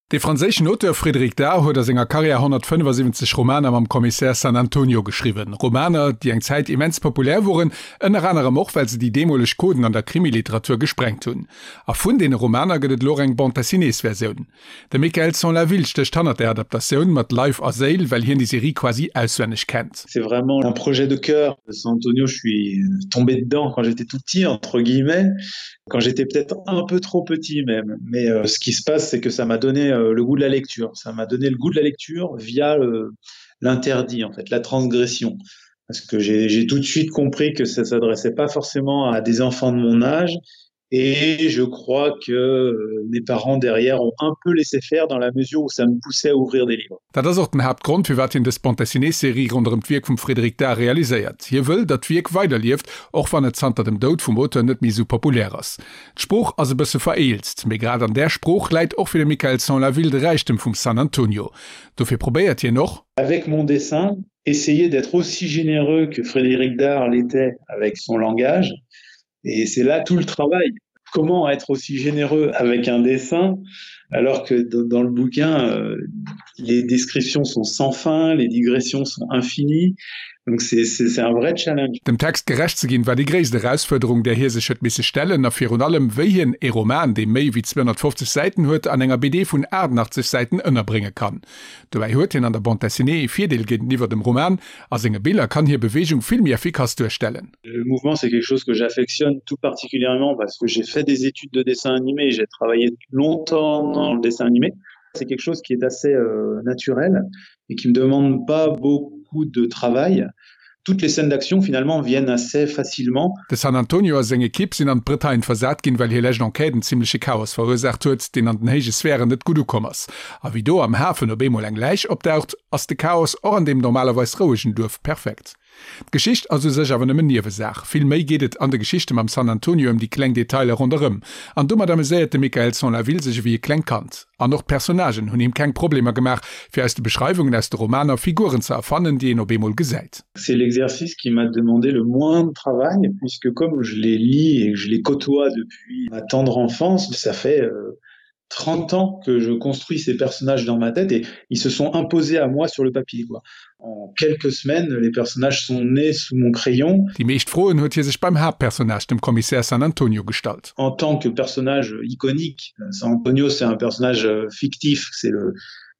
De franséischen Auteur Frédéric Dard huet a senger Karriär 175 Romaner mam Kommissär San Antonio geschriwwen. Romaner, déi eng Zäit immens populär woren, ënner anerem och, well se déi deemoleg Coden an der Krimiliteratur gesprengt hunn. A vun deene Romaner gëtt et elo och eng Bande-dessinées-Versioun. De Mickaël Sanlaville stécht hannert där Adaptatioun mat Leif a Séil, well hien déi Serie quasi auswenneg kennt. C'est vraiment un projet de cœur. San Antonio, je suis tombé dedans quand j'étais tout petit, entre guillemets. quand j'étais peut-être un peu trop petit même. Mais euh, ce qui se passe, c'est que ça m'a donné euh, le goût de la lecture. Ça m'a donné le goût de la lecture via euh, l'interdit, en fait, la transgression. Parce que j'ai tout de suite compris que ça s'adressait pas forcément à des enfants de mon âge Et je crois que euh, mes parents derrière ont un peu laissé faire dans la mesure où ça me poussait à ouvrir des livres. Dat ass och den Haaptgrond, firwat hien dës Bande-dessinée-Serie ronderëm d'Wierk vum Frédéric Dard realiséiert. Hie wëll, datt d'Wierk weiderlieft, och wann et zanter dem Doud vum Auteur net méi esou populär ass. D'Sprooch ass e bësse vereelzt, mee grad an där Sprooch läit och fir de Mickaël Sanlaville de Räichtem vum San Antonio. Dofir probéiert hien och. Avec mon dessin, essayer d'être aussi généreux que Frédéric Dard l'était avec son langage. Et c'est là tout le travail. Comment être aussi généreux avec un dessin alors que dans le bouquin, euh, les descriptions sont sans fin, les digressions sont infinies. Donc c'est un vrai challenge. Dem Text gerecht ze ginn, war déi gréisst Erausfuerderung, där hie sech huet misse stellen, a virun allem, wéi hien ee Roman, dee méi wéi 250 Säiten huet, an enger BD vun 88 Säiten ënnerbrénge kann. Dobäi huet hien an der Bande dessinée ee Virdeel géinteniwwer dem Roman, A senge Biller kann hie Beweegung vill méi effikass duerstellen. Le mouvement, c'est quelque chose que j'affectionne tout particulièrement parce que j'ai fait des études de dessin animé, j'ai travaillé longtemps dans le dessin animé. C'est quelque chose qui est assez euh, naturel et qui me demande pas beaucoup de travail. Toutes les scènes d'action finalement viennent assez facilement. De San Antonio a seng Ekipp sinn an d'Bretagne versat ginn, well hir lescht Enquête en zimmleche Chaos verursaacht huet, deen an den héije Sphären net gutt ukomm ass. A wéi do am Hafen op eemol eng Läich opdaucht, ass de Chaos och an deem normalerweis rouegen Duerf perfekt. D'Geschicht ass u sech awer nëmmen Niewesaach. Vill méi geet et an de Geschichte mam San Antonio ëm déi kleng Detailer ronderëm. An domat ameséiert de Mickaël Sanlaville sech ewéi e klengt Kand. An och d'Personnagen hunn him keng Problemer gemaach, fir aus de Beschreiwungen aus de Romaner Figuren ze erfannen, déi een op eemol gesäit. C'est l'exercice qui m'a demandé le moins de travail, puisque comme je les lis et que je les côtoie depuis ma tendre enfance, ça fait euh, 30 ans que je construis ces personnages dans ma tête et ils se sont imposés à moi sur le papier quoi. En quelques semaines, les personnages sont nés sous mon crayon. Déi meescht Froen huet hie sech beim Haaptpersonnage, dem Kommissär San Antonio, gestallt. En tant que personnage iconique, San Antonio c'est un personnage euh, fictif, c'est le,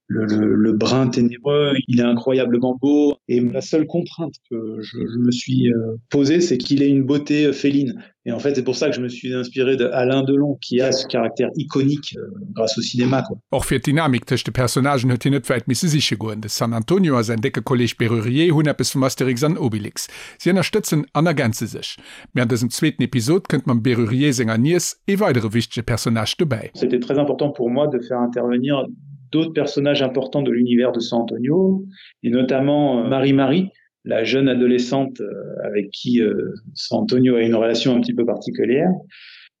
le, le, le brun ténébreux, il est incroyablement beau et la seule contrainte que je, je me suis euh, posée, c'est qu'il ait une beauté euh, féline. Et en fait, c'est pour ça que je me suis inspiré de Alain Delon qui a ce caractère iconique euh, grâce au cinéma quoi. Och fir d'Dynamik tëscht de Personnagen huet hien net wäit misse siche goen. De San Antonio a säin décke Kolleeg Bérurier hunn eppes vum Astérix an Obélix. Si ënnerstëtzen an ergänze sech. Mee an dësem zweeten Episod kënnt mam Bérurier senger Niess ee weidere wichtege Personnage dobäi. C'était très important pour moi de faire intervenir d'autres personnages importants de l'univers de San Antonio et notamment euh, Marie-Marie, la jeune adolescente euh, avec qui euh, San Antonio a une relation un petit peu particulière.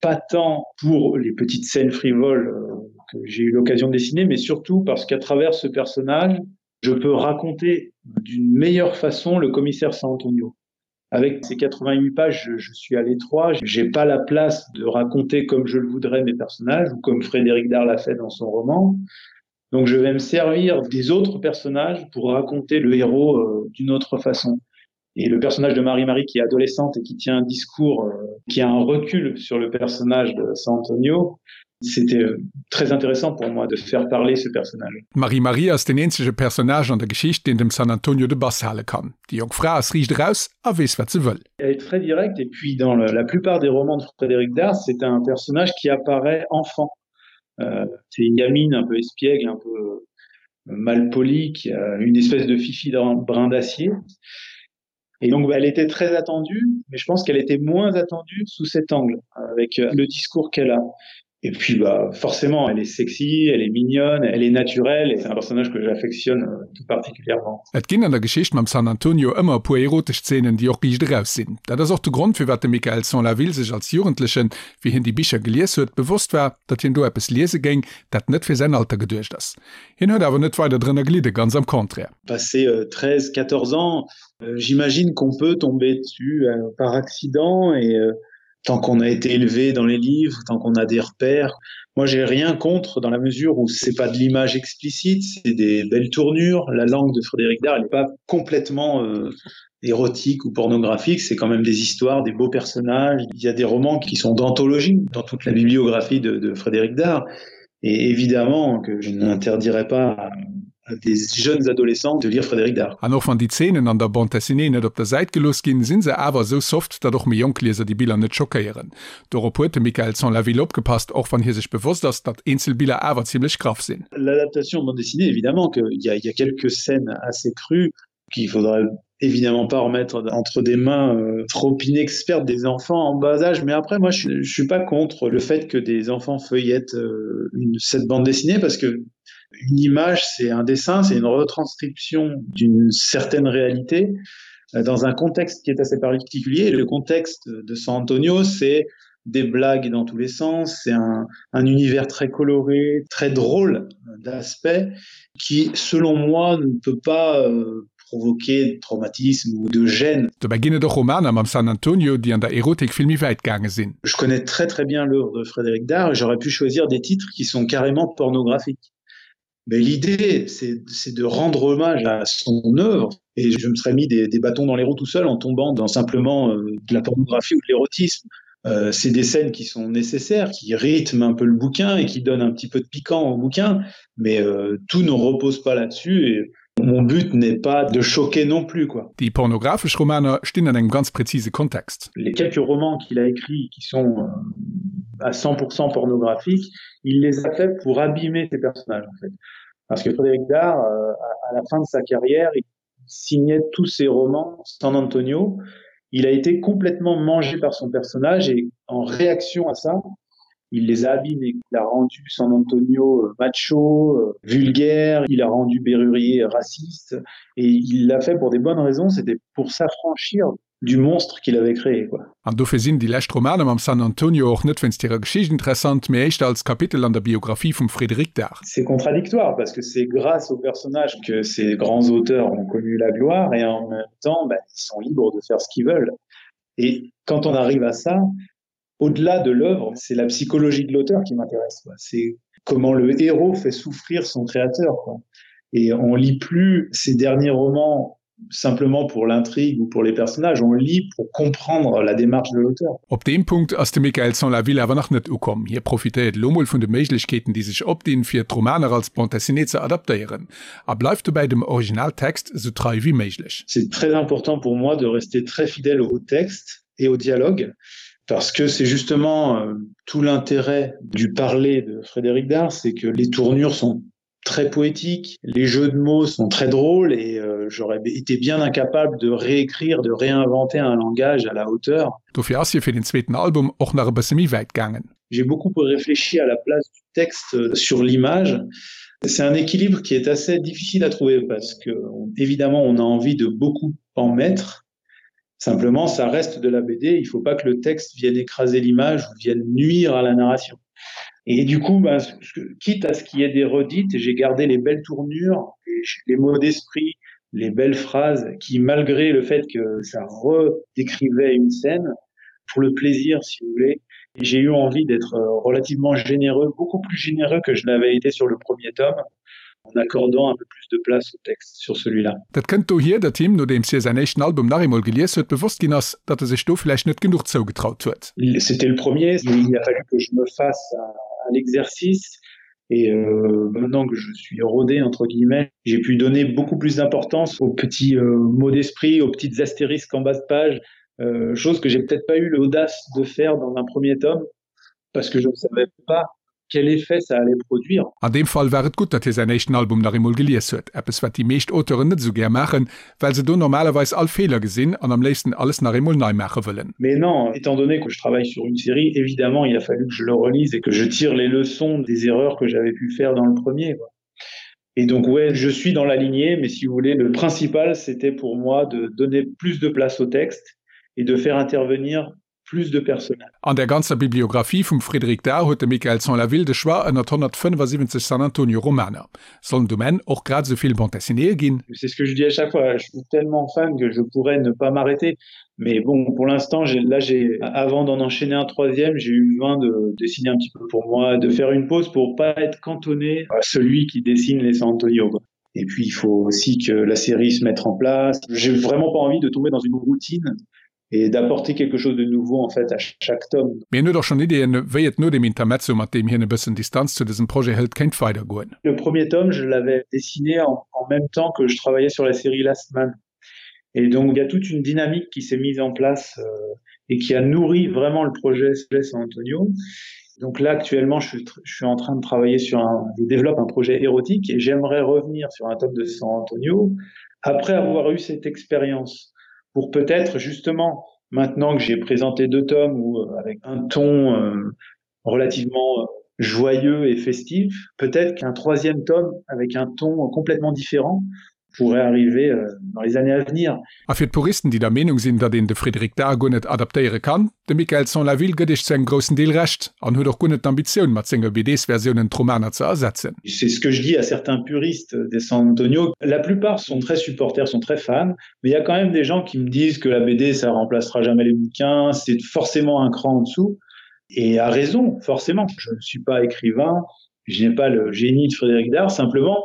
Pas tant pour les petites scènes frivoles euh, que j'ai eu l'occasion de dessiner, mais surtout parce qu'à travers ce personnage, je peux raconter d'une meilleure façon le commissaire San Antonio. Avec ces 88 pages, je, je suis à l'étroit, j'ai pas la place de raconter comme je le voudrais mes personnages ou comme Frédéric Dard l'a fait dans son roman. Donc je vais me servir des autres personnages pour raconter le héros euh, d'une autre façon. Et le personnage de Marie-Marie qui est adolescente et qui tient un discours, euh, qui a un recul sur le personnage de San Antonio, c'était euh, très intéressant pour moi de faire parler ce personnage. D'Marie-Marie ass deen eenzege Personnage an der Geschicht, deen dem San Antonio de Bass hale kann. Déi jonk Fra ass riicht eraus a weess wat se wëll. Elle est très directe et puis dans le, la plupart des romans de Frédéric Dard, c'est un personnage qui apparaît enfant. Euh, c'est une gamine un peu espiègle, un peu euh, malpolie, qui a une espèce de fifi d'un brin d'acier. Et donc elle était très attendue, mais je pense qu'elle était moins attendue sous cet angle, avec euh, le discours qu'elle a. Et puis bah, forcément, elle est sexy, elle est mignonne, elle est naturelle et c'est un personnage que j'affectionne euh, tout particulièrement. Et ginn an der Geschicht mam San Antonio ëmmer e puer erotesch Zeenen, déi och riicht eraus sinn. Dat ass och de Grond, firwat de Mickaël Sanlaville sech als Jugendlechen, wéi hien déi Bicher gelies huet, bewosst war, datt hien do eppes liese géing, dat net fir säin Alter geduecht ass. Hien huet awer net weider drënner gelidde, ganz am Contraire. Passé 13, 14 ans, j'imagine qu'on peut tomber dessus par accident et. Tant qu'on a été élevé dans les livres, tant qu'on a des repères, moi j'ai rien contre dans la mesure où c'est pas de l'image explicite, c'est des belles tournures. La langue de Frédéric Dard n'est pas complètement euh, érotique ou pornographique, c'est quand même des histoires, des beaux personnages. Il y a des romans qui sont d'anthologie dans toute la bibliographie de, de Frédéric Dard. Et évidemment que je n'interdirais pas à, à des jeunes adolescents de lire Frédéric Dard. An och wann déi Zeenen an der Bande dessinée net op der Säit gelooss ginn, sinn se awer esou soft, datt och méi jonk Lieser déi Biller net schockéieren. Dorop huet de Mickaël Sans-la-Ville opgepasst, och wann hie sech bewosst ass, datt eenzel Biller awer zimlech graff sinn. L'adaptation de bande dessinée, évidemment qu'il y a, il y a quelques scènes assez crues qu'il faudrait évidemment pas remettre entre des mains euh, trop inexpertes des enfants en bas âge mais après moi je, je suis pas contre le fait que des enfants feuillettent euh, une cette bande dessinée parce que une image c'est un dessin c'est une retranscription d'une certaine réalité euh, dans un contexte qui est assez particulier le contexte de San Antonio c'est des blagues dans tous les sens c'est un, un univers très coloré très drôle d'aspect qui selon moi ne peut pas euh, provoquer de traumatisme ou de gêne. Dobäi ginn et och Romaner mam San Antonio, déi an der Erotik vill méi wäit gaange sinn. Je connais très très bien l'œuvre de Frédéric Dard et j'aurais pu choisir des titres qui sont carrément pornographiques. Mais l'idée, c'est de rendre hommage à son œuvre et je me serais mis des, des bâtons dans les roues tout seul en tombant dans simplement euh, de la pornographie ou de l'érotisme. Euh, c'est des scènes qui sont nécessaires, qui rythment un peu le bouquin et qui donnent un petit peu de piquant au bouquin, mais euh, tout ne repose pas là-dessus et Mon but n'est pas de choquer non plus quoi. Déi pornographesch Romaner stinn an engem ganz präzise Kontext. Les quelques romans qu'il a écrits qui sont euh, à 100% pornographiques, il les a fait pour abîmer ses personnages en fait. Parce que Frédéric Dard, euh, à la fin de sa carrière, il signait tous ses romans San Antonio. Il a été complètement mangé par son personnage et en réaction à ça, il les a abîmés. Il a rendu San Antonio euh, macho, euh, vulgaire, il a rendu Berrurier raciste et il l'a fait pour des bonnes raisons, c'était pour s'affranchir du monstre qu'il avait créé quoi. An dofir sinn déi lescht Romaner mam San Antonio och net wéinst hirer Geschicht interessant, mee éischter als Kapitel an der Biographie vum Frédéric Dard. C'est contradictoire parce que c'est grâce au personnage que ces grands auteurs ont connu la gloire et en même temps ben, ils sont libres de faire ce qu'ils veulent. Et quand on arrive à ça, au-delà de l'œuvre, c'est la psychologie de l'auteur qui m'intéresse. C'est comment le héros fait souffrir son créateur. Quoi. Et on lit plus ses derniers romans simplement pour l'intrigue ou pour les personnages, on lit pour comprendre la démarche de l'auteur. Op deem Punkt ass de Mickaël Sans-la-Ville awer nach net ukomm. Hie profitéiert elo mol vun de Méiglechkeeten, déi sech opdinn, fir d'Romaner als Bande dessinée ze adaptéieren, a bleift dobäi dem Originaltext esou trei wéi méiglech. C'est très important pour moi de rester très fidèle au texte et au dialogue parce que c'est justement euh, tout l'intérêt du parler de Frédéric Dard, c'est que les tournures sont très poétiques, les jeux de mots sont très drôles et euh, j'aurais été bien incapable de réécrire, de réinventer un langage à la hauteur. Dofir ass hie fir den zweeten Album och nach e bësse méi wäit gaangen. J'ai beaucoup réfléchi à la place du texte euh, sur l'image. C'est un équilibre qui est assez difficile à trouver parce que évidemment on a envie de beaucoup en mettre. Simplement, ça reste de la BD, il faut pas que le texte vienne écraser l'image ou vienne nuire à la narration. Et du coup, ben, quitte à ce qu'il y ait des redites, j'ai gardé les belles tournures, les mots d'esprit, les belles phrases qui, malgré le fait que ça redécrivait une scène, pour le plaisir, si vous voulez, j'ai eu envie d'être euh, relativement généreux, beaucoup plus généreux que je l'avais été sur le premier tome, en accordant un peu plus de place au texte sur celui-là. Dat kënnt dohier, datt him, nodeems hie säin éischten Album nach eemol gelies huet, bewosst ginn ass, datt e sech do vläicht net genuch zougetraut huet. C'était le premier, il a fallu que je me fasse à l'exercice et euh, maintenant que je suis rodé entre guillemets, j'ai pu donner beaucoup plus d'importance aux petits euh, mots d'esprit, aux petites astérisques en bas de page, euh, chose que j'ai peut-être pas eu l'audace de faire dans un premier tome parce que je ne savais pas quel effet ça allait produire. An deem Fall war et gutt, datt hie säin éischten Album nach eemol gelies huet, eppes wat déi meescht Auteuren net esou gär maachen, well se do normalerweis all Feeler gesinn an am léifsten alles nach eemol nei maache wëllen. Mais non, étant donné que je travaille sur une série, évidemment il a fallu que je le relise et que je tire les leçons des erreurs que j'avais pu faire dans le premier quoi. Et donc ouais, je suis dans la lignée, mais si vous voulez, le principal c'était pour moi de donner plus de place au texte et de faire intervenir plus de personnages. An der ganzer Bibliographie vum Frédéric Dard huet de Mickaël Sans-la-Ville de Choix ënnert 175 San Antonio Romaner. Sollen et um Enn och grad esou vill Bande dessinéeë ginn? C'est ce que je dis à chaque fois, je suis tellement fan que je pourrais ne pas m'arrêter. Mais bon, pour l'instant, là j'ai avant d'en enchaîner un troisième, j'ai eu besoin de dessiner un petit peu pour moi, de faire une pause pour pas être cantonné à celui qui dessine les San Antonio. Quoi. Et puis il faut aussi que la série se mette en place. J'ai vraiment pas envie de tomber dans une routine et d'apporter quelque chose de nouveau en fait à chaque tome. Mee hien huet och schonn Ideeën, wéi et no dem Intermezzo, mat deem hien e bëssen Distanz zu dësem Projet hëlt, kéint weidergoen. Le premier tome, je l'avais dessiné en, en même temps que je travaillais sur la série Last Man. Et donc il y a toute une dynamique qui s'est mise en place euh, et qui a nourri vraiment le projet San Antonio. Donc là actuellement je suis, je suis en train de travailler sur un je développe un projet érotique et j'aimerais revenir sur un tome de San Antonio après avoir eu cette expérience pour peut-être justement maintenant que j'ai présenté deux tomes ou euh, avec un ton euh, relativement euh, joyeux et festif, peut-être qu'un troisième tome avec un ton complètement différent pourrait arriver euh, dans les années à venir. A fir d'Puristen, déi der Meenung sinn, datt een de Frédéric Dard guer net adaptéiere kann, de Michael Sans-la-Ville gëtt iech zu engem groussen Deel Recht an huet och guer net d'Ambitioun, mat senge BDs-Versiounen d'Romaner ze ersetzen. C'est ce que je dis à certains puristes des San Antonio. La plupart sont très supporters, sont très fans, mais il y a quand même des gens qui me disent que la BD ça remplacera jamais les bouquins, c'est forcément un cran en dessous. Et à raison, forcément. Je ne suis pas écrivain, je n'ai pas le génie de Frédéric Dard, simplement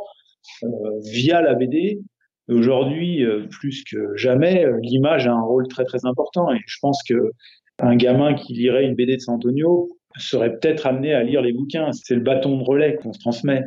euh, via la BD, aujourd'hui euh, plus que jamais, euh, l'image a un rôle très très important et je pense que un gamin qui lirait une BD de San Antonio serait peut-être amené à lire les bouquins. C'est le bâton de relais qu'on se transmet.